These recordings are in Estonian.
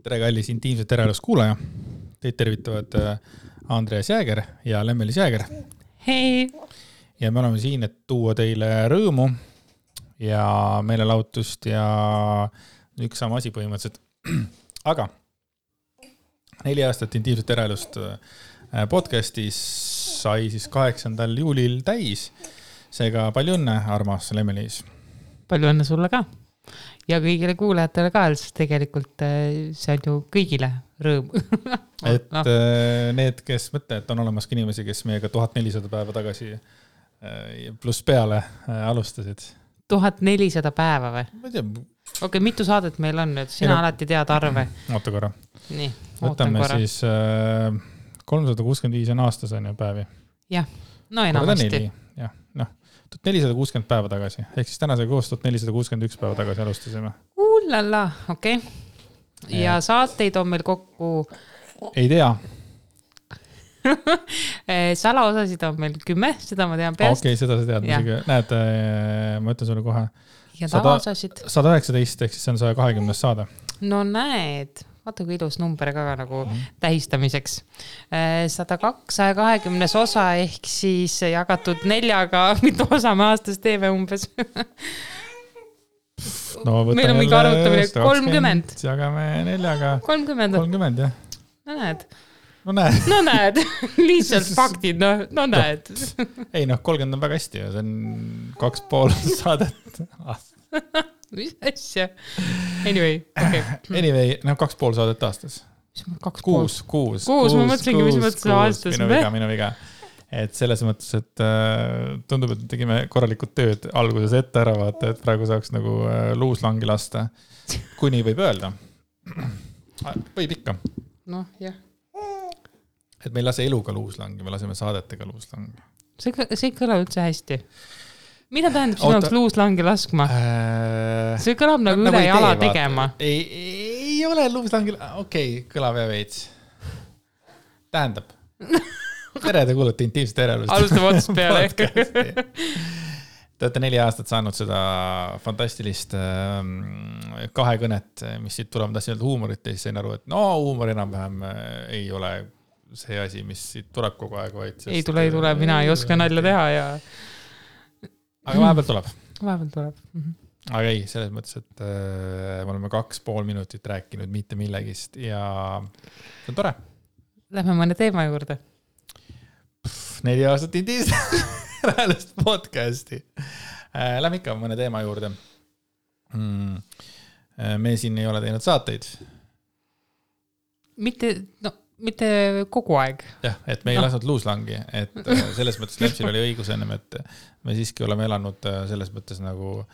Tere kallis intiimset tervelust kuulaja. Teid tervitavad Andreas Jääger ja Lemmelis Jääger. Hei! Ja me oleme siin, et tuua teile rõõmu ja meelelahutust ja üks sama asi põhimõtteliselt. Aga 4 aastat intiimset tervelust podcastis sai siis 8. juulil täis. Seega palju õnne, armas Lemmelis. Palju õnne sulle ka. Ja kõigile kuulajatele ka, sest tegelikult see on ju kõigile rõõm. Et need, kes mõtlevad, et on olemas ka inimesi, kes meiega 1400 päeva tagasi pluss peale alustasid. 1400 päeva või? Ma ei tea. Okei, mitu saadet meil on nüüd? Sina alati tead arve. Oota korra. Nii, võtame siis 365 on aastas on ju päevi. Jah, no enamasti. Jah, noh. 460 päeva tagasi, ehk siis tänasega koos 1461 päeva tagasi alustasime. Ullala, okei. Ja saateid on meil kokku... Ei tea. Salaosasid on meil 10, seda ma tean peast. Okei, seda sa tead. Näed, ma ütlen sulle kohe. Ja tavaosasid? 119, ehk siis see on 120 saade. No näed. Vaata kui ilus number ka nagu tähistamiseks. 120 osa ehk siis jagatud 4-ga, mitu osa me aastas teeme umbes. No, meil on mingi arvutamine 30. Jagame 4-ga. 30, jah. No näed. No näed. Lihtsalt faktid, no näed. Ei, 30 on väga hästi. See on 2,5 saadet aastas. Mis asja? Anyway, okay. Anyway, 2,5 saadet aastas. 6, ma mõtlesingi, mis mõttes aastas. Minu viga. Et selles mõttes, et tundub, et tegime korralikult tööd alguses ette ära vaata, et praegu saaks nagu luuslangi lasta. Kui nii võib öelda. Võib ikka. Noh, jah. Et me ei lase eluga luuslangi, me laseme saadetega luuslangi. See kõla üldse hästi. Mida tähendab sinult luuslangi laskma? See kõlab nagu üle jala tegema. Ei ole luuslangi... Okei, kõlab ja veits. Tähendab. Tere, te kuulete intiimset tervelust. Alustame otsast peale. Te olete 4 aastat saanud seda fantastilist kahekõnet, mis siit tuleb, tahtsin öelda huumorit ja siis sain aru, et huumor enam-vähem ei ole see asi, mis siit tuleb kogu aeg. Vaid ei tule, mina ei oska nalja teha ja... Aga vahepeal tuleb. Aga ei, selles mõttes, et me oleme 2,5 minutit rääkinud mitte millegist ja see on tore. Lähme mõne teema juurde. 4 aastat intiimset podcasti. Lähme ikka mõne teema juurde. Me siin ei ole teinud saateid. Mitte kogu aeg. Jah, et me ei lasnud luuslangi, et selles mõttes Lepsil oli õigus ennem, et me siiski oleme elanud selles mõttes nagu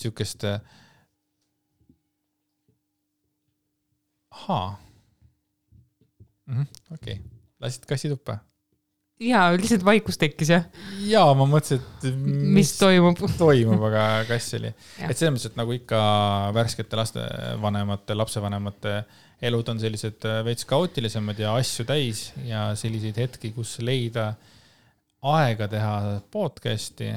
siukest okei. Lasid kassi tuppa? Jaa, lihtsalt vaikus tekkis, jah? Jaa, ma mõtlesin, et mis toimub, aga kass oli. Et selles mõttes, et nagu ikka värskete lastevanemate, lapsevanemate elud on sellised veits kaootilisemad ja asju täis ja selliseid hetki, kus leida aega teha podcasti.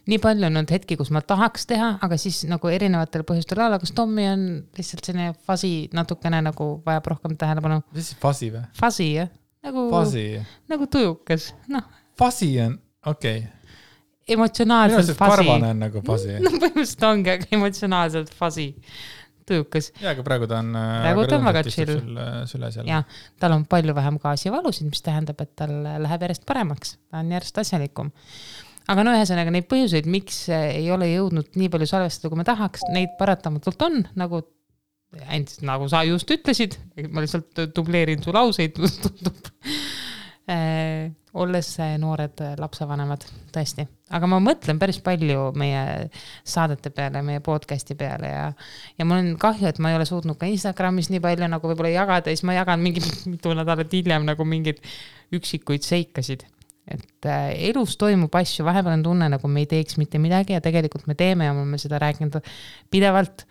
Nii palju on nüüd hetki, kus ma tahaks teha, aga siis nagu erinevatel põhjustel ala, kas Tommi on lihtsalt selline fasi natukene nagu vajab rohkem tähelepanu. Mis siis fasi või? Fasi, jah. Nagu tujukas. Fasi on, okei. Emotsionaalselt fasi. Karvane on nagu fasi. No põhimõtteliselt ongi, aga emotsionaalselt fasi. Tujukas. Ja, aga praegu ta on väga chill. Süles jälle. Ja, tal on palju vähem gaasivalusid, mis tähendab, et tal läheb järjest paremaks. Ta on järjest asjalikum. Aga ühesõnaga neid põhjuseid, miks ei ole jõudnud nii palju salvestada, kui me tahaks, neid paratamatult on, nagu sa just ütlesid, ma lihtsalt dubleerin su lauseid, tundub. Olles noored lapsevanemad, tõesti. Aga ma mõtlen päris palju meie saadete peale, meie podcasti peale ja mul on kahju, et ma ei ole suutnud ka Instagramis nii palju nagu võib-olla jagada ja siis ma jagan mitu nädalat hiljem nagu mingid üksikuid seikasid. Et elus toimub asju, vahepeal on tunne, nagu me ei teeks mitte midagi ja tegelikult me teeme ja me seda rääkinud pidevalt.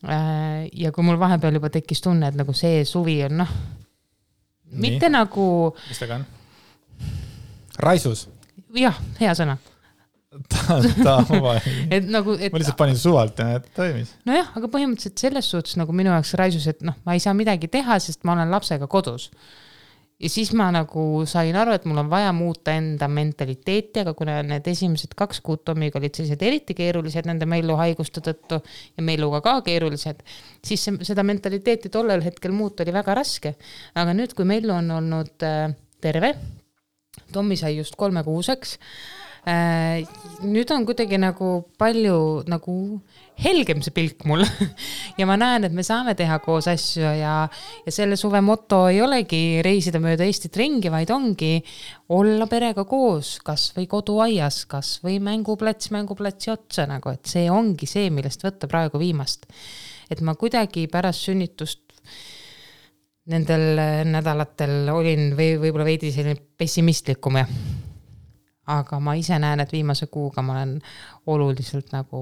Ja kui mul vahepeal juba tekkis tunne, et nagu see suvi on mitte nagu... Mis taga on? Raisus? Jah, hea sõna. et nagu, et ma lihtsalt panin suvalt ja et toimis. Nojah, aga põhimõtteliselt selles suhtes nagu minu jaoks raisus, et noh, ma ei saa midagi teha, sest ma olen lapsega kodus. Ja siis ma nagu sain aru, et mul on vaja muuta enda mentaliteeti, aga kuna need esimesed 2 kuud Tomiga olid sellised eriti keerulised nende melluhaiguste tõttu ja melluga ka keerulised, siis seda mentaliteeti tollel hetkel muuta oli väga raske. Aga nüüd, kui mellu on olnud terve, Tomi sai just 3-kuuseks, nüüd on kuidagi nagu palju nagu helgem see pilk mul ja ma näen, et me saame teha koos asju ja selle suve moto ei olegi reisida mööda Eestit ringi, vaid ongi olla perega koos, kas või koduaias, kas või mänguplatsi otsa, nagu, et see ongi see, millest võtta praegu viimast. Et ma kuidagi pärast sünnitust nendel nädalatel olin võib-olla veidi selline pessimistlikum aga ma ise näen, et viimase kuuga ma olen oluliselt nagu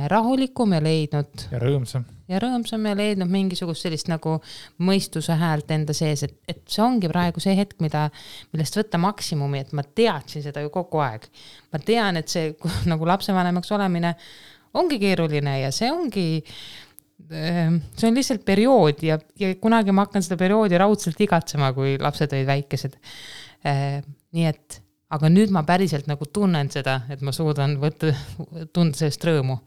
rahulikum ja leidnud ja rõõmsam ja leidnud mingisugust sellist nagu mõistuse häält enda sees, et see ongi praegu see hetk, millest võtta maksimumi, et ma teadsin seda ju kogu aeg. Ma tean, et see nagu lapsevanemaks olemine ongi keeruline ja see on lihtsalt periood ja kunagi ma hakkan seda perioodi raudselt igatsema, kui lapsed olid väikesed. Nii et aga nüüd ma päriselt nagu tunnen seda, et ma suudan tunda sellest rõõmu.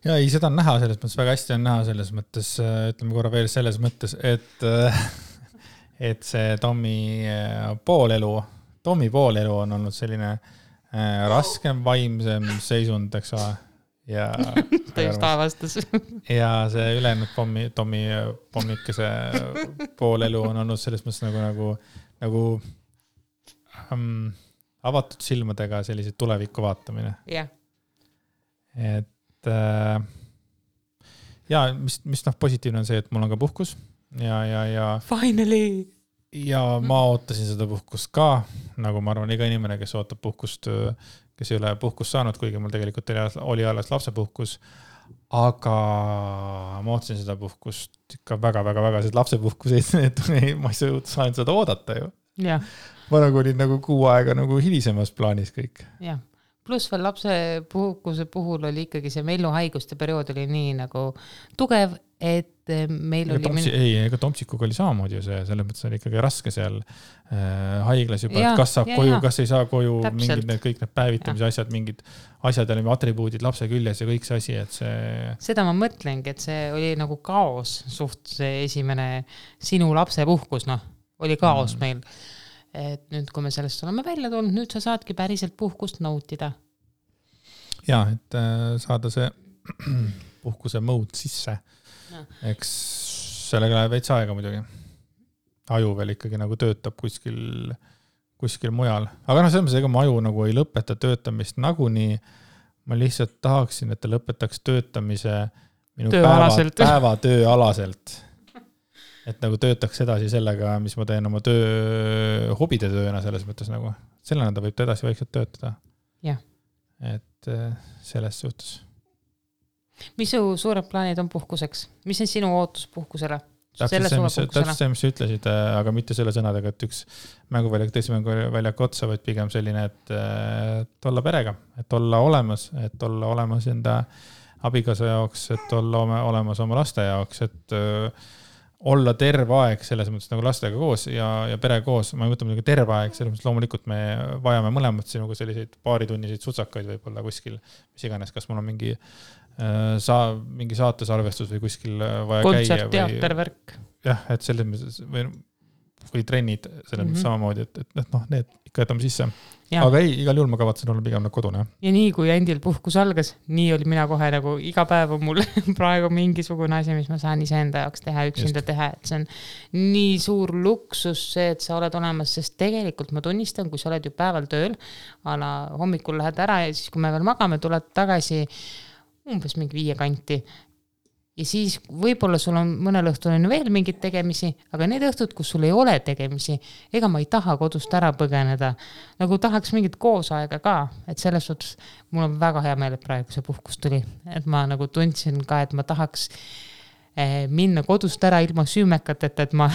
Ja ei, seda on näha selles mõttes, väga hästi on näha selles mõttes, ütleme korra veel selles mõttes, et see Tomi poolelu on olnud selline raskem, vaimsem seisund, eks ole. Ja just avastas. Ja see ülejäänud Tomi pommikese poolelu on olnud selles mõttes nagu avatud silmadega sellised tulevikku vaatamine. Yeah. Et ja mis positiivne on see, et mul on ka puhkus ja Finally! Ja ma ootasin seda puhkust ka, nagu ma arvan, iga inimene, kes ootab puhkust, kes ei ole puhkust saanud, kuigi mul tegelikult oli alles lapsepuhkus, aga ma ootasin seda puhkust ikka väga, sest lapsepuhkuseid, ma ei saanud seda oodata ju. Ja. Ma nagu olin nagu 6 aega nagu hilisemas plaanis kõik. Ja. Plus veel lapsepuhkuse puhul oli ikkagi see melluhaiguste periood oli nii nagu tugev, et meil oli... Ega Tomsikuga oli samamoodi ju see, selles mõttes oli ikkagi raske seal haiglas juba, et kas saab koju, kas ei saa koju, mingid kõik need päevitamise asjad, mingid asjad olid atribuudid lapse küljes ja kõik see asi, et see... Seda ma mõtlengi, et see oli nagu kaos suht see esimene sinu lapsepuhkus, oli kaos meil. Et nüüd, kui me sellest oleme välja tulnud, nüüd sa saadki päriselt puhkust nautida. Ja, et saada see puhkuse mode sisse. Eks sellega läheb veits aega muidugi. Aju veel ikkagi nagu töötab kuskil mujal. Aga selles ega mu aju nagu ei lõpeta töötamist nagunii. Ma lihtsalt tahaksin, et ta lõpetaks töötamise minu päevatööalaselt. Et nagu töötaks edasi sellega, mis ma teen oma hobide tööna selles mõttes nagu. Sellena ta võib ta edasi vaikselt töötada. Ja. Et selles suhtes. Mis su suured plaanid on puhkuseks? Mis on sinu ootus puhkusele? Täpselt see, mis sa ütlesid, aga mitte selle sõnadega, et üks teise mänguväljak otsa, vaid pigem selline, et olla perega, et olla olemas enda abikaasa jaoks, et olla olemas oma laste jaoks, et olla terve aeg selles mõttes nagu lastega koos ja pere koos. Ma ei mõtle muidugi terve aeg, selles mõttes loomulikult me vajame mõlemad sinuga selliseid paaritunniseid sutsakaid võib-olla kuskil, mis iganes, kas mul on mingi saatesarvestus või kuskil vaja käia. Kontsert, teatervärk. Jah, et selles mõttes või trennid selles mõttes samamoodi, et need ikka jätame sisse. Ja. Aga ei, igal juhul ma kavatsen olla pigem kodune. Ja nii kui endil puhkus algas, nii oli mina kohe nagu iga päev on mul praegu mingisugune asi, mis ma saan iseenda jaoks teha, üksinda teha, et see on nii suur luksus see, et sa oled olemas, sest tegelikult ma tunnistan, kui sa oled ju päeval tööl, hommikul lähed ära ja siis kui me veel magame, tuled tagasi umbes mingi 5 kanti. Ja siis võib-olla sul on mõnel õhtul on veel mingid tegemisi, aga need õhtud, kus sul ei ole tegemisi, ega ma ei taha kodust ära põgeneda. Nagu tahaks mingit koosaega ka, et selles suhtes mul on väga hea meel, et praegu see puhkus tuli. Et ma nagu tundsin ka, et ma tahaks minna kodust ära ilma süümekateta, et ma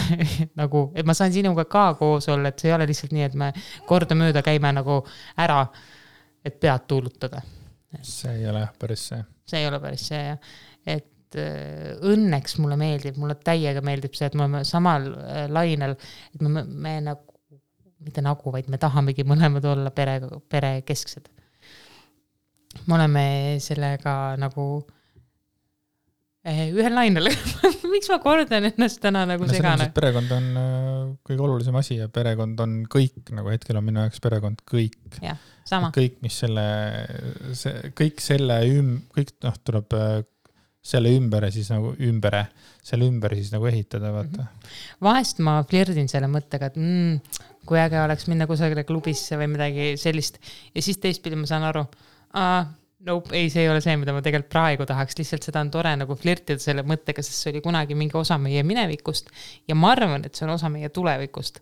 nagu, et ma saan sinuga ka koos olla, et see ei ole lihtsalt nii, et me kordamööda käime nagu ära, et pead tuulutada. See ei ole päris see. See ei ole päris see, jah. Et õnneks mulle meeldib, mulle täiega meeldib see, et me oleme samal lainel, et me nagu, mitte nagu, vaid me tahamegi mõlemad olla pere kesksed. Me oleme sellega nagu ühel lainel. Miks ma kordan ennast täna nagu segane? Perekond on kõige olulisem asi ja perekond on kõik, nagu hetkel on minu jaoks perekond kõik. Ja, sama. Kõik, mis kõik tuleb selle ümber siis nagu selle ümber siis nagu ehitada, vaata. Vahest ma flirdin selle mõttega, et kui äge oleks minna kusagile klubisse või midagi sellist ja siis teistpidi ma saan aru, nope, ei, see ei ole see, mida ma tegelikult praegu tahaks, lihtsalt seda on tore nagu flirtida selle mõttega, sest see oli kunagi mingi osa meie minevikust ja ma arvan, et see on osa meie tulevikust,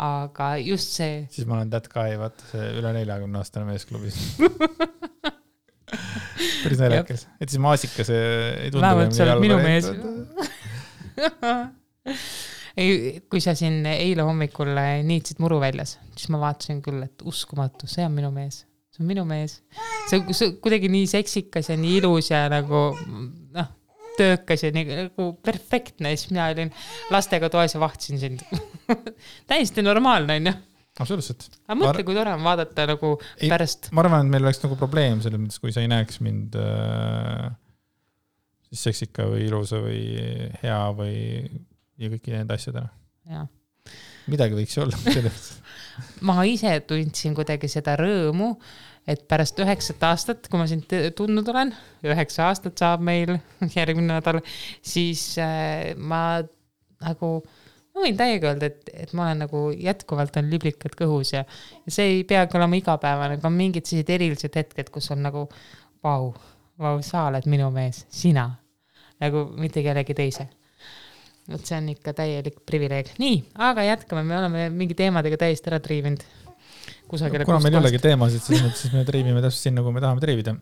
aga just see... Siis ma olen that guy, vaata see üle 40-aastane meesklubis. Päris näljakas. Et siis maasikas ei tundu. Vähemalt sa oled minu mees. Kui sa siin eile hommikul niitsid muru väljas, siis ma vaatasin küll, et uskumatu, see on minu mees. See on minu mees. See kuidagi nii seksikas ja nii ilus ja nagu töökas ja nagu perfektne. Siis mina olin lastega toes ja vahtisin sind. Täiesti normaalne, on ju? Absoluutselt. Aga mõtle, kui tore on vaadata nagu pärast. Ma arvan, et meil oleks nagu probleem selles mõttes, kui sa ei näeks mind siis seksika või ilusa või hea või ja kõiki need asjadena. Ja. Midagi võiks olla. Ma ise tundsin kuidagi seda rõõmu, et pärast 9 aastat, kui ma sind tundnud olen, 9 aastat saab meil järgmine nädal, siis ma nagu... Ma võin täiega öelda, et ma olen nagu jätkuvalt on liblikad kõhus ja see ei peagi olema igapäevane, aga on mingid sellised erilised hetked, kus on nagu vau, sa oled minu mees, sina, nagu mitte kellegi teise. Et see on ikka täielik privileeg. Nii, aga jätkame, me oleme mingi teemadega täiesti ära triivinud. Kuna meil ei olegi teemasid, siis me triivime täpselt sinna, kui me tahame triivida.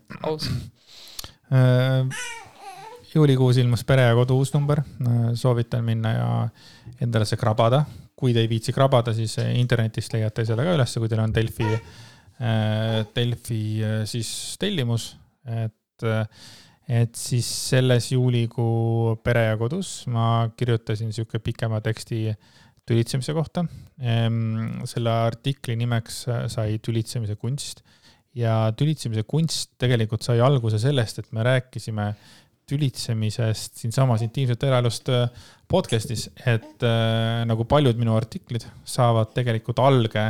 Juulikuus ilmus Pere ja Kodu uus number, soovitan minna ja endale see krabada. Kui te ei viitsi krabada, siis internetist leiate selle ka üles, kui teil on Delfi siis tellimus. Et siis selles juulikuu Pere ja Kodus ma kirjutasin siuke pikema teksti tülitsemise kohta. Selle artikli nimeks sai tülitsemise kunst ja tülitsemise kunst tegelikult sai alguse sellest, et me rääkisime tülitsemisest siin samas intiimset eraelust podcastis, et nagu paljud minu artiklid saavad tegelikult alge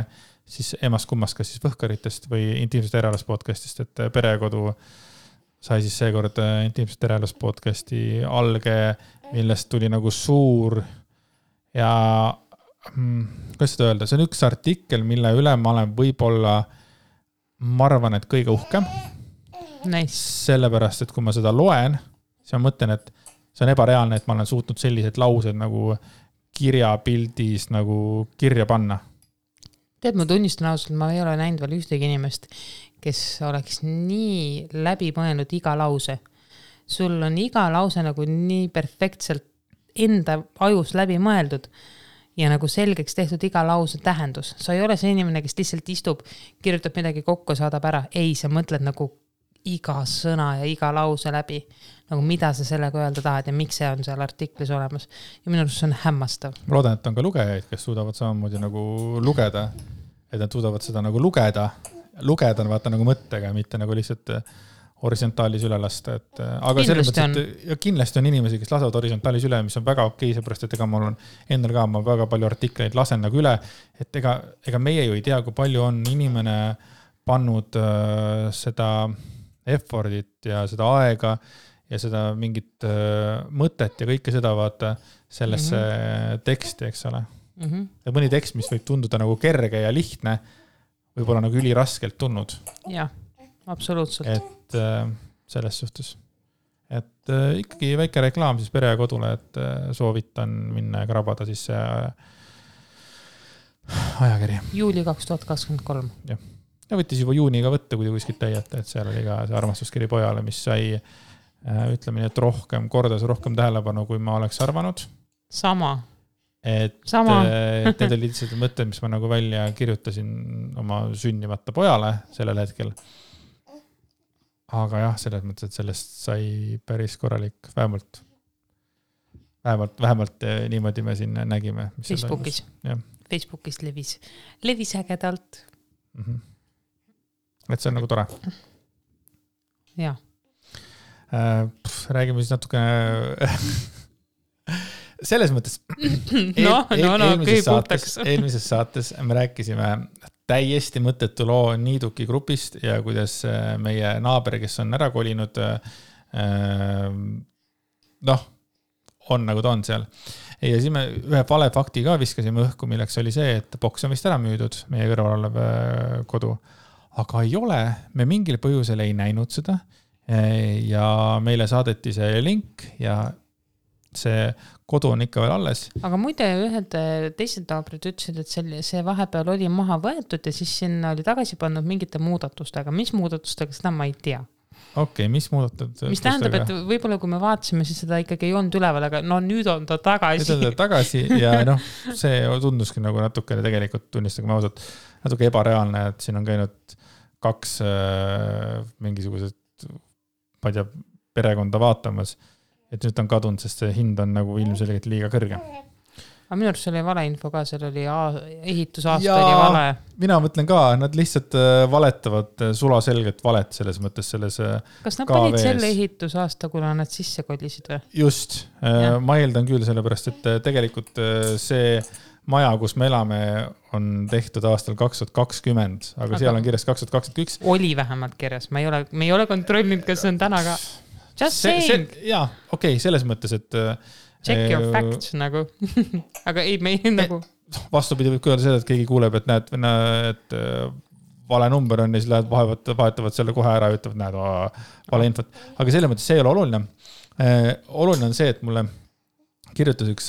siis emast kummast, kas siis Võhkaritest või intiimset eraelust podcastist, et Pere ja Kodu sai siis seekord intiimset eraelust podcasti alge, millest tuli nagu suur ja kuidas seda öelda, see on üks artikkel, mille üle ma olen võib-olla, ma arvan, et kõige uhkem. Nice. Sellepärast, et kui ma seda loen, siis ma mõtlen, et see on ebareaalne, et ma olen suutnud sellised laused nagu kirjapildis nagu kirja panna. Tead, ma tunnistan ausalt, ma ei ole näinud veel ühtegi inimest, kes oleks nii läbi mõelnud iga lause. Sul on iga lause nagu nii perfektselt enda ajus läbi mõeldud ja nagu selgeks tehtud iga lause tähendus. Sa ei ole see inimene, kes lihtsalt istub, kirjutab midagi kokku, saadab ära. Ei, sa mõtled nagu iga sõna ja iga lause läbi, nagu mida sa sellega öelda tahad ja miks see on seal artiklis olemas. Ja minu arust see on hämmastav. Ma loodan, et on ka lugejaid, kes suudavad samamoodi nagu lugeda, et nad suudavad seda nagu lugeda on vaata nagu mõttega, mitte nagu lihtsalt horisontaalis üle lasta. Aga selles mõttes, et kindlasti on inimesi, kes lasavad horisontaalis üle, mis on väga okei, seepärast, et ega mul on endal ka, ma väga palju artikleid lasen nagu üle, et ega meie ju ei tea, kui palju on inimene pannud seda effortit ja seda aega ja seda mingit mõtet ja kõike seda vaata sellesse teksti, eks ole. Ja mõni tekst, mis võib tunduda nagu kerge ja lihtne, võib-olla nagu üliraskelt tulnud. Jah, absoluutselt. Et selles suhtes. Et ikkagi väike reklaam siis Pere ja Kodule, et soovitan minna ja krabada siis see ajakiri. Juuli 2023. Jah. Ja võttis juba juuniga võtta, kui te kuskilt täiete, et seal oli ka see armastuskiri pojale, mis sai ütleme nii, et kordas rohkem tähelepanu, kui ma oleks arvanud. Sama. Et need olid lihtsalt mõtted, mis ma nagu välja kirjutasin oma sünnimata pojale sellel hetkel. Aga jah, selles mõttes, et sellest sai päris korralik, vähemalt niimoodi me siin nägime. Facebookis levis ägedalt. Et see on nagu tore. Jah. Räägime siis natuke selles mõttes eelmises saates me rääkisime täiesti mõttetu loo Niiduki grupist ja kuidas meie naaber, kes on ära kolinud, on nagu ta on seal. Ja siis me ühe vale fakti ka viskasime õhku, milleks oli see, et boks on vist ära müüdud, meie kõrval olev kodu. Aga ei ole, me mingil põhjusel ei näinud seda ja meile saadeti see link ja see kodu on ikka veel alles. Aga muide, ühed teised naabrid ütlesid, et see vahepeal oli maha võetud ja siis sinna oli tagasi pannud mingite muudatustega. Mis muudatustega, seda ma ei tea. Okei, mis muudatustega? Mis tähendab, et võib-olla kui me vaatasime, siis seda ikkagi ei olnud üleval, aga nüüd on ta tagasi. Nüüd on ta tagasi ja see tunduski nagu natukene tegelikult tunnistage ausalt natuke ebareaalne, et siin on käinud 2 mingisugused ma ei tea, perekonda vaatamas, et nüüd on kadunud, sest see hind on nagu ilmselgelt liiga kõrge. Aga minu arust oli vale info ka, seal oli ehitusaasta oli vale. Mina mõtlen ka, nad lihtsalt valetavad sulaselget valet selles mõttes selles Kas nad panid selle ehitusaasta, kuna nad sisse kolisid või? Just, ma eeldan küll sellepärast, et tegelikult see maja, kus me elame, on tehtud aastal 2020, aga seal on kirjas 2021. Oli vähemalt kirjas, me ei ole kontrollinud, kas see on täna ka. Just saying. Jaa, okei, selles mõttes, et check your facts nagu. Aga ei, me ei nagu vastupidi võib öelda seda, et keegi kuuleb, et näed, et vale number on ja siis vahetavad selle kohe ära ja ütlevad, näed, vale infot. Aga selle mõttes see ei ole oluline. Oluline on see, et mulle kirjutas üks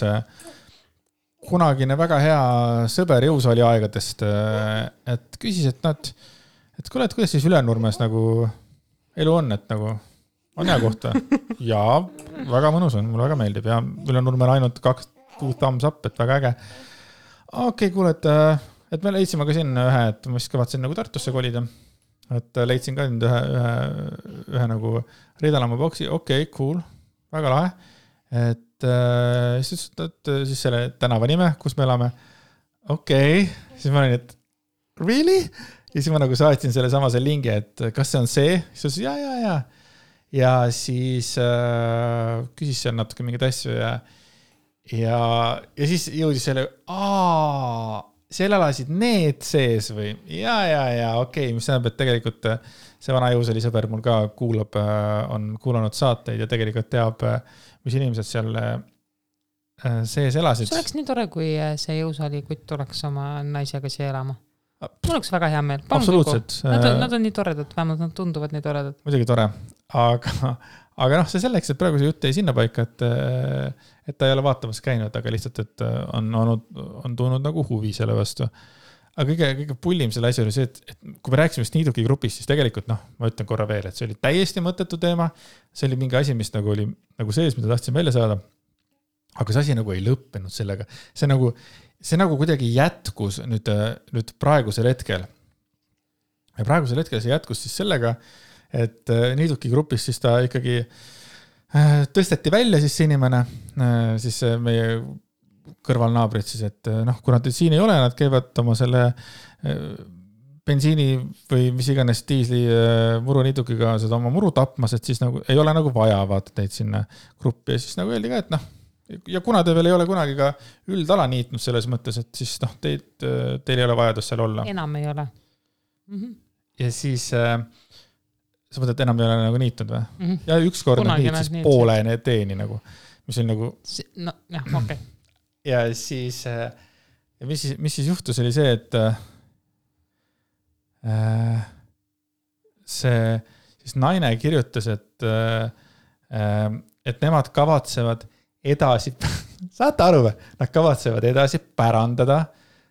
kunagine väga hea sõber jõusaali aegadest, et küsis, et kuule, et kuidas siis Ülenurmes nagu elu on, et nagu on hea kohta. Jaa, väga mõnus on, mulle väga meeldib ja Ülenurmel ainult 2 thumbs up, et väga äge. Okei, kuule, et me leidsime ka siin ühe, et ma vist kavatsen nagu Tartusse kolida. Et leidsin ka nüüd ühe nagu Riidalamaa boksi. Okei, cool, väga lahe. Et siis selle tänava nime, kus me elame. Okei, siis ma olin, et really? Ja siis ma nagu saatsin selle samase lingi, et kas see on see? Siis ja. Ja siis küsis seal natuke mingid asju ja siis jõudis selle, seal elasid need sees või? Ja, okei, mis tähendab, et tegelikult see vana jõusali sõber mul ka on kuulanud saateid ja tegelikult teab, mis inimesed seal sees elasid. See oleks nii tore, kui see jõusali kutt tuleks oma naisega siia elama. Mul oleks väga hea meel. Absoluutselt. Nad on nii toredad, vähemalt nad tunduvad nii toredad. Muidugi tore, aga see selleks, et praegu see jutt ei sinna paika, et ta ei ole vaatamas käinud, aga lihtsalt, et on tulnud nagu huvi selle vastu. Aga kõige pullim selle asja oli see, et kui me rääksime Niiduki grupist, siis tegelikult, ma ütlen korra veel, et see oli täiesti mõttetu teema. See oli mingi asi, mis nagu oli nagu sees, mida tahtsin välja saada. Aga see asi nagu ei lõppenud sellega. See nagu kuidagi jätkus nüüd praegusel hetkel. Ja praegusel hetkel see jätkus siis sellega, et Niiduki grupis siis ta ikkagi tõsteti välja siis see inimene, siis meie kõrvalnaabrid siis, et kuna nad siin ei ole, nad käivad oma selle bensiini või mis iganes diisli muru Niidukiga seda oma muru tapmas, et siis nagu ei ole nagu vaja vaata teid sinna gruppi ja siis nagu öeldi ka, et ja kuna te veel ei ole kunagi ka üldala niitnud selles mõttes, et siis teil ei ole vajadus seal olla. Enam ei ole. Ja siis sa mõtled, et enam ei ole nagu niitnud või? Ja ükskord nad niit siis poole teeni nagu, mis oli nagu okei. Ja siis mis siis juhtus oli see, et see siis naine kirjutas, et nemad kavatsevad edasi, saate aru või? Nad kavatsevad edasi pärandada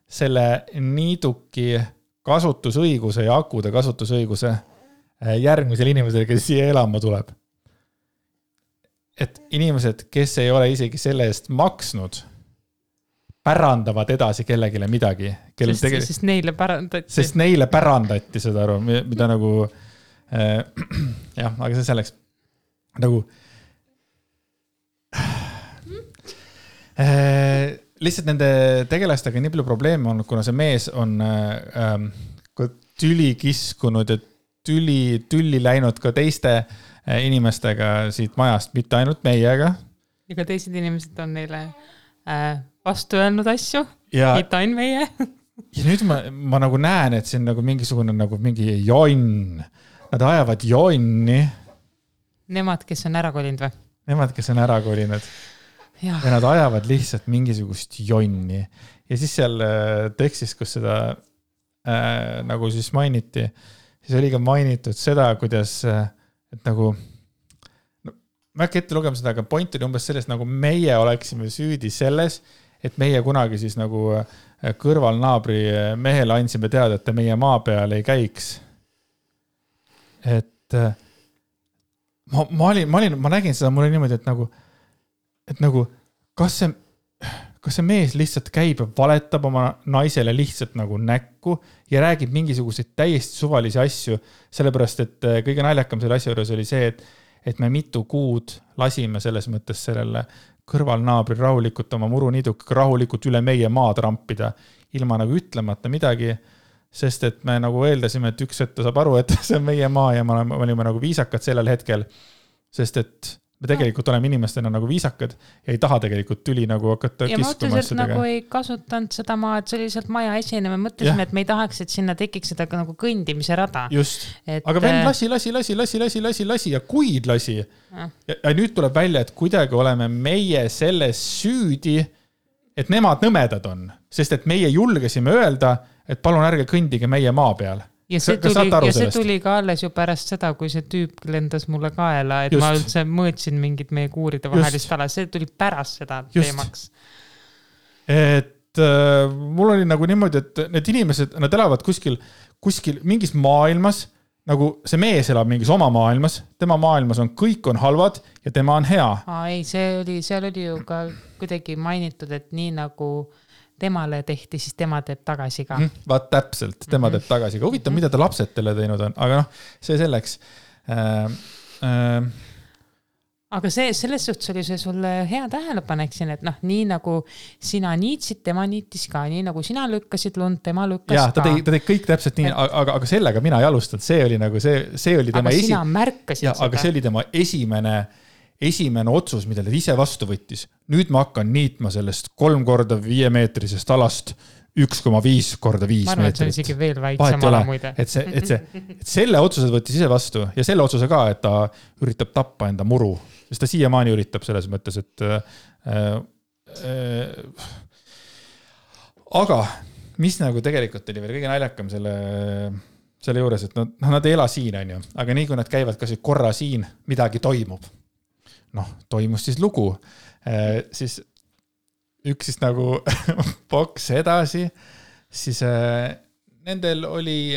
selle Niiduki kasutusõiguse ja akude kasutusõiguse järgmisel inimesel, kes siia elama tuleb. et inimesed, kes ei ole isegi selle eest maksnud, pärandavad edasi kellegile midagi. Sest neile pärandati. Sest neile pärandati seda aru, mida nagu, jah, aga see selleks nagu lihtsalt nende tegelastega nii palju probleeme on, kuna see mees on tüli kiskunud ja tülli läinud ka teiste inimestega siit majast, mitte ainult meiega. Ja ka teised inimesed on neile vastu öelnud asju, mitte ainult meie. Ja nüüd ma nagu näen, et see on nagu mingisugune nagu mingi jonn. Nad ajavad jonni. Nemad, kes on ära kolinud või? Nemad, kes on ära kolinud. Ja nad ajavad lihtsalt mingisugust jonni. Ja siis seal tekstis, kus seda nagu siis mainiti, siis oli ka mainitud seda, kuidas, et nagu, no, ma äkki ette lugema seda, aga point oli umbes sellest, nagu meie oleksime süüdi selles, et meie kunagi siis nagu kõrvalnaabri mehele andsime teada, et ta meie maa peal ei käiks. Et ma nägin seda, mul oli niimoodi, et nagu, kas see mees lihtsalt käib ja valetab oma naisele lihtsalt nagu näkku ja räägib mingisuguseid täiesti suvalisi asju, sellepärast, et kõige naljakam selle asja juures oli see, et me mitu kuud lasime selles mõttes sellele kõrvalnaabri rahulikult oma muruniiduga rahulikult üle meie maad rampida, ilma nagu ütlemata midagi, sest et me nagu eeldasime, et üks hetk ta saab aru, et see on meie maa ja me olime nagu viisakad sellel hetkel, sest et me tegelikult oleme inimestena nagu viisakad ja ei taha tegelikult tüli nagu hakata kiskuma. Ja ma otseselt nagu ei kasutanud seda maa, et see oli lihtsalt maja esine. Me mõtlesime, et me ei tahaks, et sinna tekiks seda nagu kõndimise rada. Just. Aga vend lasi ja kuid lasi. Ja nüüd tuleb välja, et kuidagi oleme meie selles süüdi, et nemad nõmedad on. Sest et meie julgesime öelda, et palun ärge kõndige meie maa peal. Ja see tuli ka alles ju pärast seda, kui see tüüp lendas mulle kaela, et ma üldse mõõtsin mingid meie kuuride vahelist ala. See tuli pärast seda teemaks. Et mul oli nagu niimoodi, et need inimesed, nad elavad kuskil mingis maailmas, nagu see mees elab mingis oma maailmas, tema maailmas kõik on halvad ja tema on hea. Ei, seal oli ju ka kuidagi mainitud, et nii nagu temale tehti, siis tema teeb tagasi ka. Vaat täpselt, tema teeb tagasi ka. Huvitav, mida ta lapsed teile teinud on, aga noh, see selleks. Aga selles suhtes oli see sulle hea tähelepanek siin, et noh, nii nagu sina niitsid, tema niitis ka, nii nagu sina lükkasid lund, tema lükkas ka. Ta teeb kõik täpselt nii, aga sellega mina ei alustanud, see oli nagu see oli tema aga sina märkasid seda. Aga see oli tema esimene otsus, mida ta ise vastu võttis. Nüüd ma hakkan niitma sellest 3x5 meetrisest alast 1,5x5 meetrit. Ma arvan, et see on isegi veel väiksem ala muide. Et selle otsused võttis ise vastu ja selle otsuse ka, et ta üritab tappa enda muru. Sest ta siiamaani üritab selles mõttes, et aga mis nagu tegelikult oli veel kõige naljakam selle juures, et nad ei ela siin, on ju, aga nii kui nad käivad kas korra siin, midagi toimub. Toimus siis lugu. Siis üks siis nagu boks edasi, siis nendel oli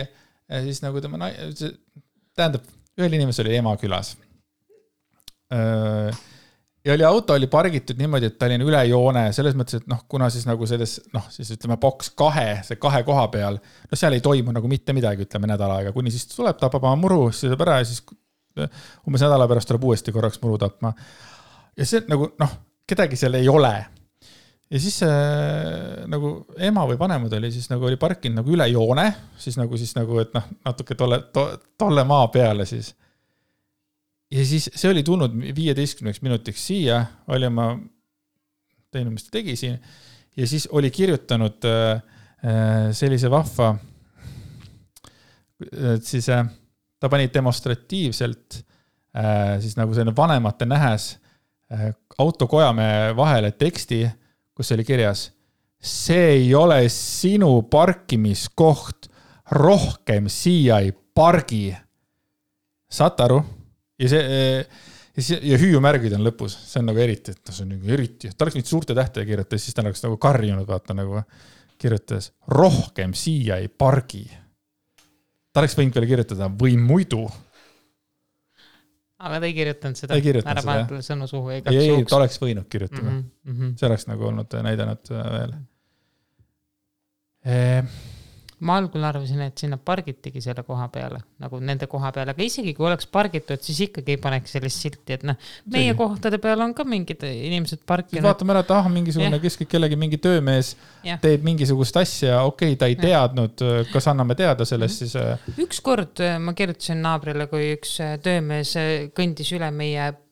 siis nagu tähendab, ühel inimesel oli ema külas. Ja auto oli pargitud niimoodi, et ta oli üle joone, selles mõttes, et kuna siis nagu selles, siis ütleme boks 2 koha peal, seal ei toimu nagu mitte midagi, ütleme nädala aega, kuni siis tuleb, tapab oma muru, siis tuleb ära ja siis umbes nädala pärast tuleb uuesti korraks muru tapma. Ja see nagu, kedagi seal ei ole. Ja siis nagu ema või vanemad oli siis nagu oli parkinud nagu üle joone, siis nagu, et natuke tolle maa peale siis. Ja siis see oli tulnud 15 minutiks siia, oli ma teinud, mis ta tegi siin, ja siis oli kirjutanud sellise vahva, et siis ta pani demonstratiivselt siis nagu selline vanemate nähes autokojame vahele teksti, kus oli kirjas, see ei ole sinu parkimiskoht, rohkem siia ei pargi. Saad aru? Ja hüüumärgid on lõpus, see on nagu eriti, et see on nagu eriti, ta oleks nüüd suurte tähtedega kirjutada, siis ta oleks nagu karjunud, vaata nagu kirjutades, rohkem siia ei pargi. Ta oleks võinud veel kirjutada või muidu. aga ta ei kirjutanud seda. Ta ei kirjutanud ära seda, pannud talle sõnu suhu. Ei, ta oleks võinud kirjutada. See oleks nagu olnud näidanud veel. Ma algul arvasin, et sinna pargitigi selle koha peale, nagu nende koha peale, aga isegi kui oleks pargitud, siis ikkagi ei paneks sellist silti, et meie kohtade peal on ka mingid inimesed parkinud. Vaatame ära, et mingisugune kellegi mingi töömees teeb mingisugust asja, ta ei teadnud, kas anname teada sellest siis. Ükskord ma kirjutasin naabrile, kui üks töömees kõndis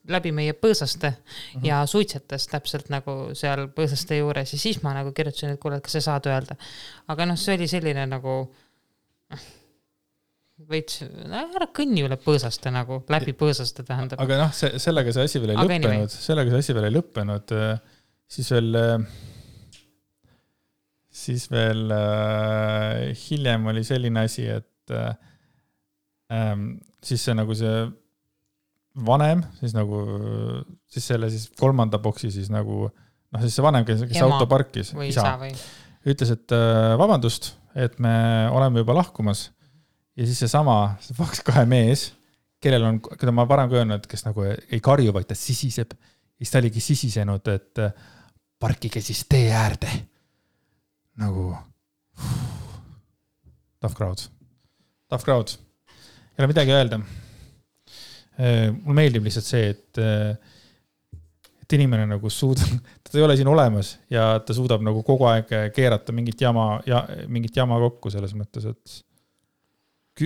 läbi meie põõsaste ja suitsetas täpselt nagu seal põõsaste juures ja siis ma nagu kirjutasin, et kuule, kas sa saad öelda. Aga see oli selline nagu veits, ära kõnni üle põõsaste nagu, läbi põõsaste tähendab. Aga sellega see asi veel ei lõppenud, siis veel hiljem oli selline asi, et siis see nagu see vanem, siis selle kolmanda boksi siis nagu, siis see vanem, kes auto parkis, isa, ütles, et vabandust, et me oleme juba lahkumas ja siis see kahe mees, keda ma varem ka öelnud, kes nagu ei karju, vaid ta sisiseb ja siis ta oligi sisisenud, et parkige siis tee äärde nagu tough crowd ei ole midagi öelda. Mul meeldib lihtsalt see, et inimene nagu ta ei ole siin olemas ja ta suudab nagu kogu aeg keerata mingit jama kokku selles mõttes, et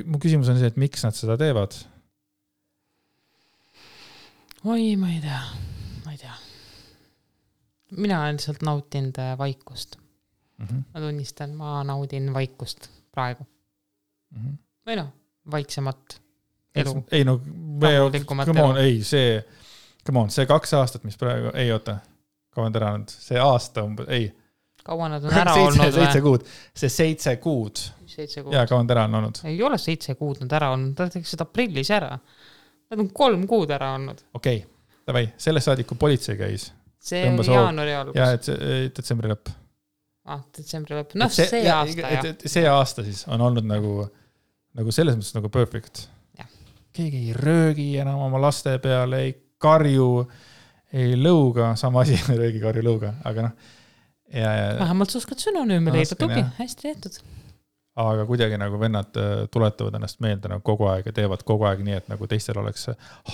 mu küsimus on see, et miks nad seda teevad? Oi, ma ei tea. Mina olen lihtsalt nautinud vaikust. Ma tunnistan, ma naudin vaikust praegu. Või vaiksemat elu. Ei see 2 aastat, mis praegu, ei oota, kaua on ära olnud, see aasta umbes, ei. Kaua nad on ära olnud? 7 kuud, see 7 kuud. Ja kaua on ära olnud? Ei ole 7 kuud nad ära olnud, nad tegid seda aprillis ära. Nad on 3 kuud ära olnud. Okei, davai, sellest saadik, kui politsei käis. See on jaanuari algus. Ja, et detsembri lõpp. Detsembri lõpp, see aasta, jah. See aasta siis on olnud nagu selles mõttes nagu perfect. Keegi ei röögi enam oma laste peale, ei karju, ei lõuga, sama asi, röögi, karju, lõuga, aga vähemalt sa oskad sünonüüme leida, tugi, hästi tehtud. Aga kuidagi nagu vennad tuletavad ennast meelde nagu kogu aeg ja teevad kogu aeg nii, et nagu teistel oleks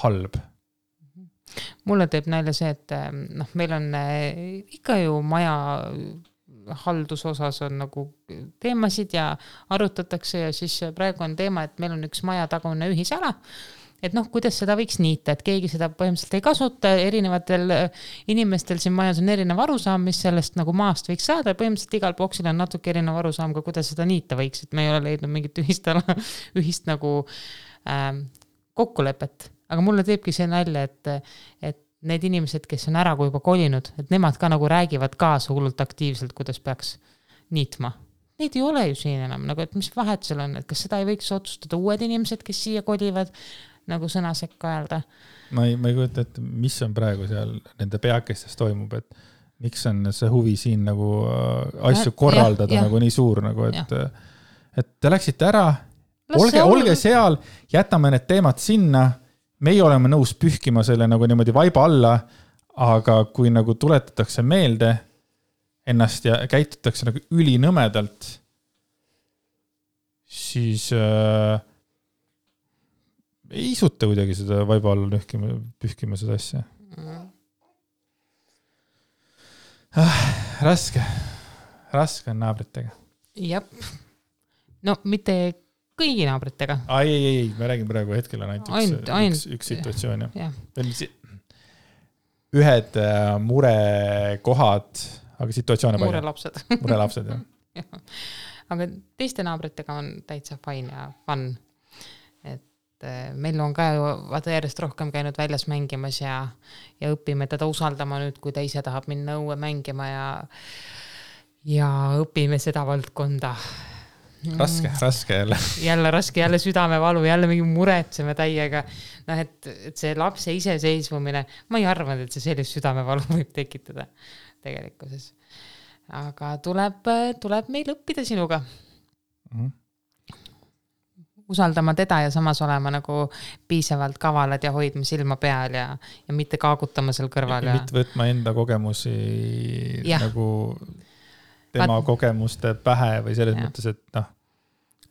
halb. Mulle teeb nalja see, et meil on ikka ju maja haldusosas on nagu teemasid ja arutatakse ja siis praegu on teema, et meil on üks maja tagune ühisala, et kuidas seda võiks niita, et keegi seda põhimõtteliselt ei kasuta, erinevatel inimestel siin majas on erinev arusaam, mis sellest nagu maast võiks saada ja põhimõtteliselt igal boksil on natuke erinev arusaam, ka kuidas seda niita võiks, et me ei ole leidnud mingit ühist nagu kokkulepet, aga mulle teebki see nalja, et need inimesed, kes on ära kui juba kolinud, et nemad ka nagu räägivad kaasa hullult aktiivselt, kuidas peaks niitma. Neid ei ole ju siin enam, nagu, et mis vahet seal on, et kas seda ei võiks otsustada uued inimesed, kes siia kolivad, nagu sõna sekka öelda. Ma ei kujuta, et mis on praegu seal nende peakestes toimub, et miks on see huvi siin nagu asju korraldada nagu nii suur, nagu, et te läksite ära, olge seal, jätame need teemad sinna, meie oleme nõus pühkima selle nagu niimoodi vaiba alla, aga kui nagu tuletatakse meelde ennast ja käitutakse nagu ülinõmedalt, siis ei isuta kuidagi seda vaiba alla pühkima seda asja. Raske on naabritega. Jep. No mitte kõigi naabritega. Ei, me räägime praegu hetkel on ainult üks situatsioon. Ühed murekohad, aga situatsioone palju. Murelapsed, jah. Aga teiste naabritega on täitsa fine ja fun. Et meil on ka järjest rohkem käinud väljas mängimas ja õpime teda usaldama nüüd, kui ta ise tahab minna õue mängima ja õpime seda valdkonda. Raske jälle. Jälle raske, jälle südamevalu, jälle mingi muretseme täiega. Et see lapse iseseisvumine, ma ei arvanud, et see sellist südamevalu võib tekitada tegelikkuses. Aga tuleb meil õppida sinuga. usaldama teda ja samas olema nagu piisavalt kavalad ja hoidma silma peal ja mitte kaagutama seal kõrval. Ja mitte võtma enda kogemusi nagu tema kogemuste pähe või selles mõttes, et noh.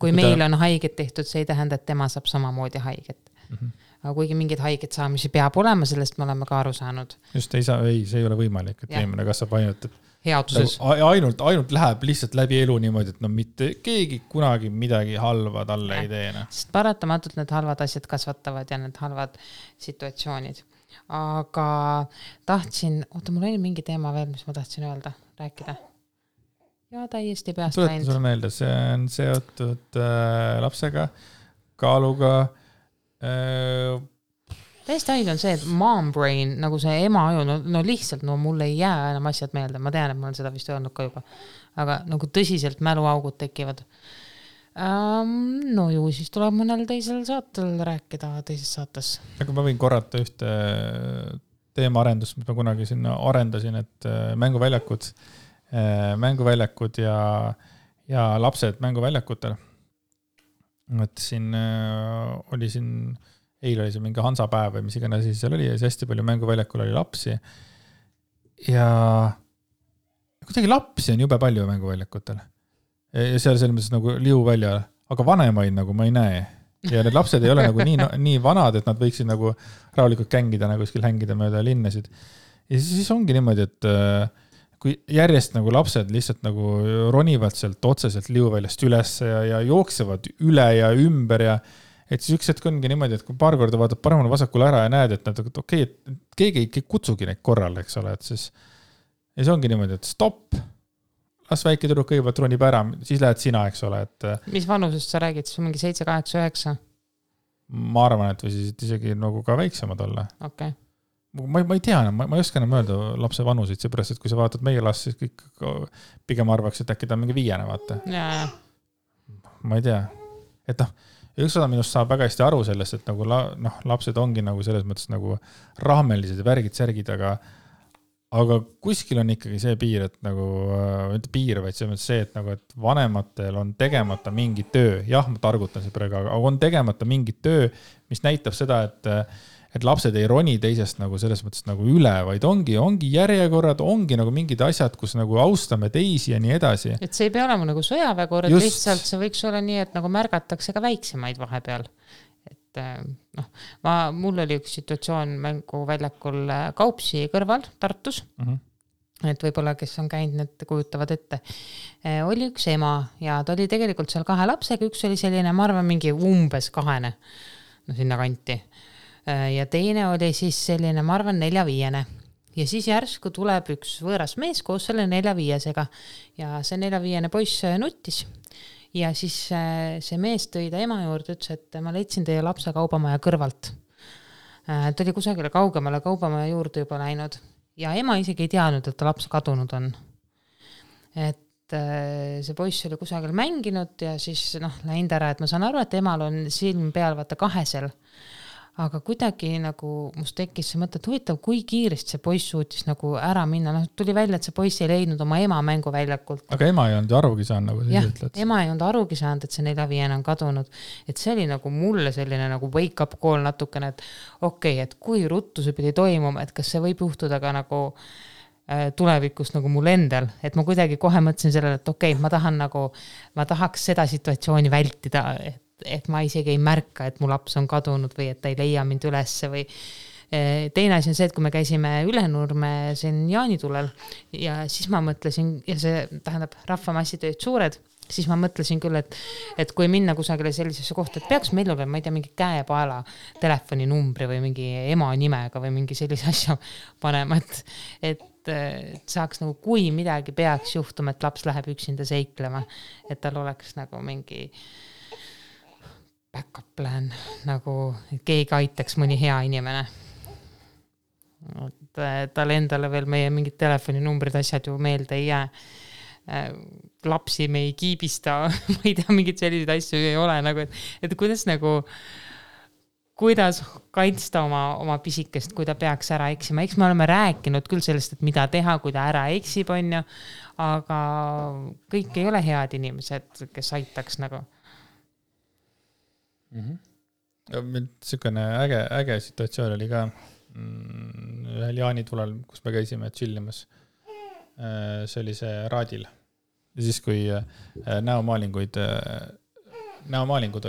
Kui meil on haiget tehtud, see ei tähenda, et tema saab samamoodi haiget. Aga kuigi mingid haiget saamisi peab olema, sellest me oleme ka aru saanud. Just see ei ole võimalik, et inimene kasvab ainult, et headuses. Ainult läheb lihtsalt läbi elu niimoodi, et no mitte keegi kunagi midagi halva talle ei tee. Sest paratamatult need halvad asjad kasvatavad ja need halvad situatsioonid. Aga tahtsin, mul oli mingi teema veel, mis ma tahtsin öelda, rääkida. Ja täiesti peast läinud. Tuletan sulle meelde, see on seotud lapsega, kaaluga. Täiesti ainult on see, et mom brain, nagu see ema aju, no lihtsalt, mul ei jää enam asjad meelde. Ma tean, et ma olen seda vist öelnud ka juba. Aga nagu tõsiselt mäluaugud tekivad. No ju, siis tuleb mõnel teisel saatel rääkida teises saates. Aga ma võin korrata ühte teemaarendust, mis ma kunagi sinna arendasin, et mänguväljakud ja lapsed mänguväljakutel. Et siin oli eile oli see mingi Hansapäev või mis iganes siis seal oli ja siis hästi palju mänguväljakul oli lapsi. Ja kuidagi lapsi on jube palju mänguväljakutel. Ja seal selles mõttes nagu liu välja, aga vanemaid nagu ma ei näe. Ja need lapsed ei ole nagu nii vanad, et nad võiksid nagu rahulikult kängida, nagu kuskil hängida mööda linnasid. Ja siis ongi niimoodi, et kui järjest nagu lapsed lihtsalt nagu ronivad sealt otseselt liuväljast üles ja jooksevad üle ja ümber ja et siis üks hetk ongi niimoodi, et kui paar korda vaatad paremale vasakule ära ja näed, et nad okei, et keegi ei kutsugi neid korral, eks ole, et siis ja see ongi niimoodi, et stopp, las väike tüdruk kõigepealt ronib ära, siis lähed sina, eks ole. Et mis vanusest sa räägid, siis mingi 7, 8, 9? Ma arvan, et või siis isegi nagu ka väiksemad olla. Okay. Ma ei tea, ma ei oska enam öelda lapse vanusid, seepärast, et kui sa vaatad meie last, siis kõik pigem arvaks, et äkki ta on mingi 5, vaata. Ja. Ma ei tea. Et üks osa minust saab väga hästi aru sellest, et nagu lapsed ongi nagu selles mõttes nagu rahmelised ja värgid, särgid, aga kuskil on ikkagi see piir, et nagu, mitte piir, vaid see, et nagu, et vanematel on tegemata mingi töö. Jah, ma targutan see praegu, aga on tegemata mingi töö, mis näitab seda, et lapsed ei roni teisest nagu selles mõttes nagu üle, vaid ongi järjekorrad, ongi nagu mingid asjad, kus nagu austame teisi ja nii edasi. Et see ei pea olema nagu sõjaväekord, lihtsalt see võiks olla nii, et nagu märgatakse ka väiksemaid vahepeal. Et mul oli üks situatsioon mänguväljakul Kaupsi kõrval Tartus. Et võib-olla, kes on käinud, need kujutavad ette. Oli üks ema ja ta oli tegelikult seal 2 lapsega, üks oli selline, ma arvan, mingi umbes 2, sinna kanti. Ja teine oli siis selline, ma arvan, 4-5. Ja siis järsku tuleb üks võõras mees koos selle 4-5-sega ja see 4-5 poiss nuttis. Ja siis see mees tõi ta ema juurde, ütles, et ma leidsin teie lapse kaubamaja kõrvalt. Ta oli kusagile kaugemale kaubamaja juurde juba läinud ja ema isegi ei teadnud, et ta laps kadunud on. Et see poiss oli kusagil mänginud ja siis läinud ära, et ma saan aru, et emal on silm peal vaata 2. Aga kuidagi nagu must tekkis see mõte, et huvitav, kui kiiresti see poiss suutis nagu ära minna. Tuli välja, et see poiss ei leidnud oma ema mänguväljakult. Aga ema ei olnud arugi saanud, nagu siis ütled. Ema ei olnud arugi saanud, et see 4-5 on kadunud. Et see oli nagu mulle selline nagu wake up call natukene, et okei, et kui ruttu see pidi toimuma, et kas see võib juhtuda ka nagu tulevikus nagu mul endal, et ma kuidagi kohe mõtlesin sellele, et okei, ma tahaks seda situatsiooni vältida, et ma isegi ei märka, et mu laps on kadunud või et ta ei leia mind ülesse või teine asi on see, et kui me käisime Ülenurme siin jaanitulel ja siis ma mõtlesin, ja see tähendab rahvamassid olid suured, siis ma mõtlesin küll, et kui minna kusagile sellisesse kohta, et peaks meil olema, ma ei tea, mingi käepaela telefoninumbri või mingi ema nimega või mingi sellise asja panema, et saaks nagu, kui midagi peaks juhtuma, et laps läheb üksinda seiklema, et tal oleks nagu mingi backup plan, nagu keegi aitaks mõni hea inimene. Tal endale veel meie mingid telefoninumbrid, asjad ju meelde ei jää. Lapsi me ei kiibista, ma ei tea, mingid sellised asju ei ole, nagu, et kuidas kaitsta oma pisikest, kui ta peaks ära eksima. Eks me oleme rääkinud küll sellest, et mida teha, kui ta ära eksib, on ju, aga kõik ei ole head inimesed, kes aitaks nagu. Niisugune äge situatsioon oli ka ühel jaanitulel, kus me käisime chillimas. See oli see Raadil. Ja siis, kui näomaalingud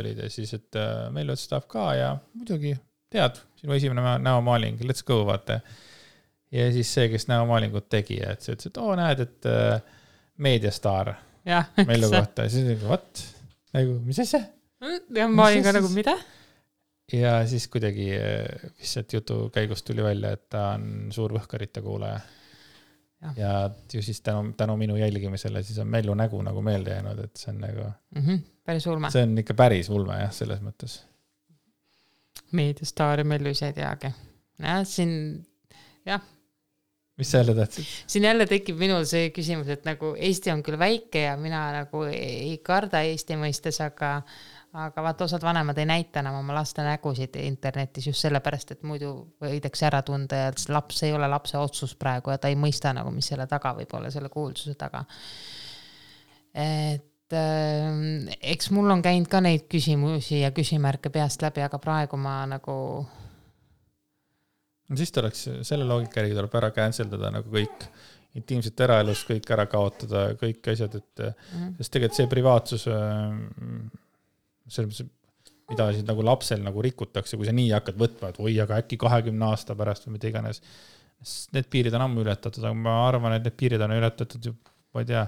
olid ja siis, et meil tahab ka ja muidugi tead, sinu esimene näomaaling, let's go, vaata. Ja siis see, kes näomaalingut tegi, et see ütles, et näed, et Meediastaar meilu kohta. Ja siis nagu, nagu, mis asja? Ja ma olin ka nagu, mida? Ja siis kuidagi lihtsalt jutu käigust tuli välja, et ta on suur võhkarite kuulaja. Ja ju siis tänu minu jälgimisele siis on Mellu nägu nagu meelde jäänud, et see on nagu... päris ulme. See on ikka päris ulme, jah, selles mõttes. Meediastaar ja Mellu ise ei teagi. Mis sa jälle tahtsid? Siin jälle tekib minul see küsimus, et nagu Eesti on küll väike ja mina nagu ei karda Eesti mõistes, aga vaata osad vanemad ei näita enam oma laste nägusid internetis just sellepärast, et muidu võidakse ära tunda ja laps ei ole lapse otsus praegu ja ta ei mõista nagu, mis selle taga võib olla, selle kuulsuse taga. Et eks mul on käinud ka neid küsimusi ja küsimärke peast läbi, aga praegu ma nagu... No siis tuleks selle loogika järgi tuleb ära canceldada nagu kõik intiimset eraelust, kõik ära kaotada, kõik asjad, et sest tegelikult see privaatsus, mida siis nagu lapsel nagu rikutakse, kui sa nii hakkad võtma, et aga äkki 20 aasta pärast või mida iganes. Need piirid on ammu ületatud, aga ma arvan, et need piirid on ületatud ma ei tea,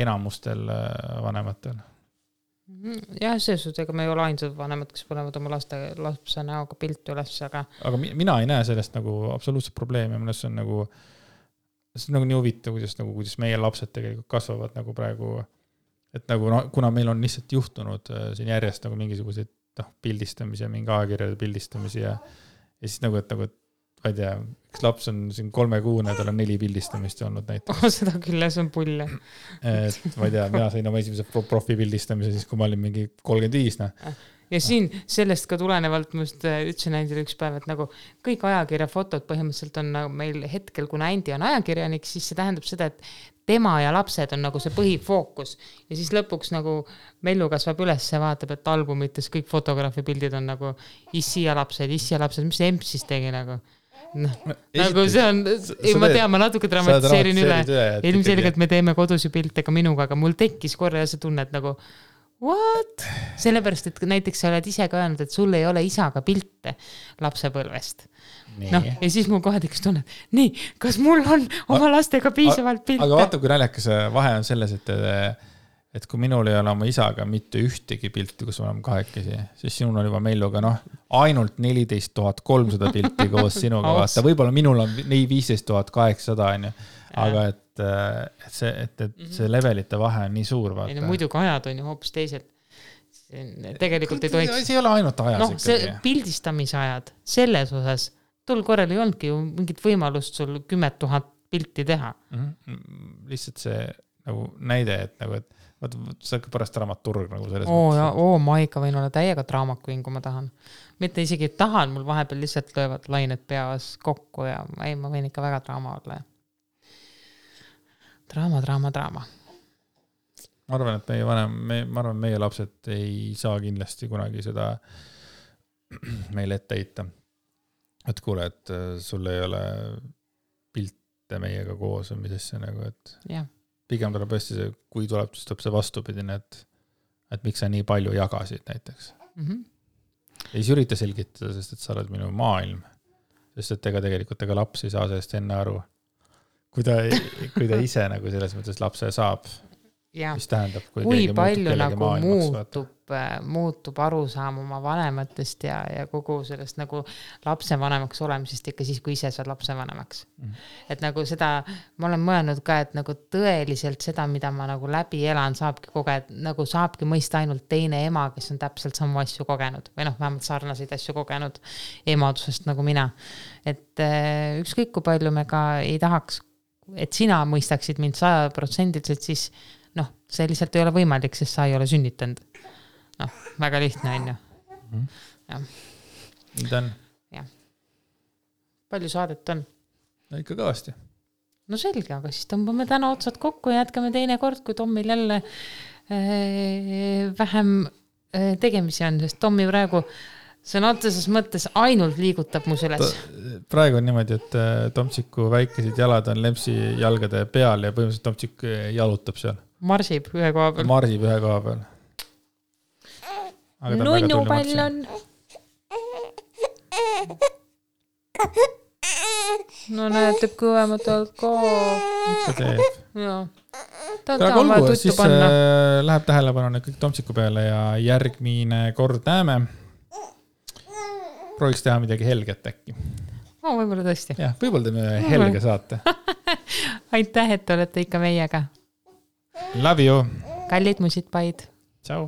enamustel vanematel. Jah, see suhtes, ega me ei ole ainsad vanemad, kes panevad oma lapse näoga pilti üles, aga mina ei näe sellest nagu absoluutselt probleemi, mõnes on nagu see on nagu nii huvitav, kuidas meie lapsed tegelikult kasvavad nagu praegu, et nagu kuna meil on lihtsalt juhtunud siin järjest nagu mingisuguseid pildistamisi ja mingi ajakirjade pildistamisi ja siis nagu, et ma ei tea, üks laps on siin 3-kuune, tal on 4 pildistamist olnud näiteks. Seda küll, see on pull. Et ma ei tea, mina sain oma esimese profi pildistamise siis, kui ma olin mingi 35. Ja siin sellest ka tulenevalt ma just ütlesin Andile üks päev, et nagu kõik ajakirja fotod põhimõtteliselt on nagu meil hetkel, kuna Andi on ajakirjanik, siis see tähendab seda, et tema ja lapsed on nagu see põhifookus ja siis lõpuks nagu Mellu kasvab üles ja vaatab, et albumites kõik fotograafi pildid on nagu issi ja lapsed, mis see emp siis tegi nagu. Nagu see on, ma tean, ma natuke dramatiseerin üle. Ilmselgelt me teeme kodusi pilte ka minuga, aga mul tekkis korra ja see tunne, et nagu what? Sellepärast, et näiteks sa oled ise ka öelnud, et sul ei ole isaga pilte lapsepõlvest. Ja siis mul kohe tekkis tunne, nii, kas mul on oma lastega piisavalt pilte? Aga vaata, kui naljakas vahe on selles, et kui minul ei ole oma isaga mitte ühtegi pilti, kus oleme kahekesi, siis sinul on juba Melluga ainult 14 300 pilti koos sinuga vaata. Võib-olla minul on 15 800, aga et see levelite vahe on nii suur. Vaata. Muidugi ajad on ju hoopis teised. Tegelikult ei tohiks... See ei ole ainult ajas ikkagi. See pildistamise ajad, selles osas, tol korral ei olnudki ju mingit võimalust sul 10 000 pilti teha. Lihtsalt see nagu näide, et nagu, et see on pärast dramaturg nagu selles mõttes. Ma ikka võin olla täiega draamakuin, kui ma tahan. Mitte isegi tahan, mul vahepeal lihtsalt löövad lained peas kokku ja ma võin ikka väga draama olla. Draama. Ma arvan, et meie lapsed ei saa kindlasti kunagi seda meile ette heita. Et kuule, et sul ei ole pilte meiega koos või misesse nagu, et... Jah. Pigem tuleb tõesti see, kui tuleb see vastupidine, et miks sa nii palju jagasid näiteks. Ja siis ürita selgitada, sest et sa oled minu maailm. Sest et tegelikult laps ei saa sellest enne aru. Kui ta ise nagu selles mõttes lapse saab, mis tähendab, kui palju nagu muutub arusaam oma vanematest ja kogu sellest nagu lapse vanemaks olemisest ikka siis, kui ise saad lapse vanemaks. Et nagu seda, ma olen mõelnud ka, et nagu tõeliselt seda, mida ma nagu läbi elan, saabki mõista ainult teine ema, kes on täpselt samu asju kogenud või vähemalt sarnaseid asju kogenud emadusest nagu mina. Et ükskõik kui palju me ka ei tahaks, et sina mõistaksid mind 100%, siis see lihtsalt ei ole võimalik, sest sa ei ole sünnitanud. Väga lihtne on ju. Mida on? Jah. Palju saadet on? No ikka kõvasti. No selge, aga siis tõmbame täna otsad kokku ja jätkame teine kord, kui Tommil jälle vähem tegemisi on, sest Tommi praegu sõna otseses mõttes ainult liigutab mu süles. Praegu on niimoodi, et Tomtsiku väikesed jalad on Lempsi jalgade peal ja põhimõtteliselt Tomtsik jalutab seal. Marsib ühe koha peal. Marsib ühe koha peal. Nunnupall on. No näed, teeb kõvemat alkohol. Ikka teeb. Jaa. Ta on vaja tuttu panna. Läheb tähelepanu kõik Tomtsiku peale ja järgmine kord näeme. Prooviks teha midagi helget äkki. Võib-olla tõesti. Jah, võib-olla teeme helge saate. Aitäh, et olete ikka meiega. Love you. Kallid musid paid. Ciao.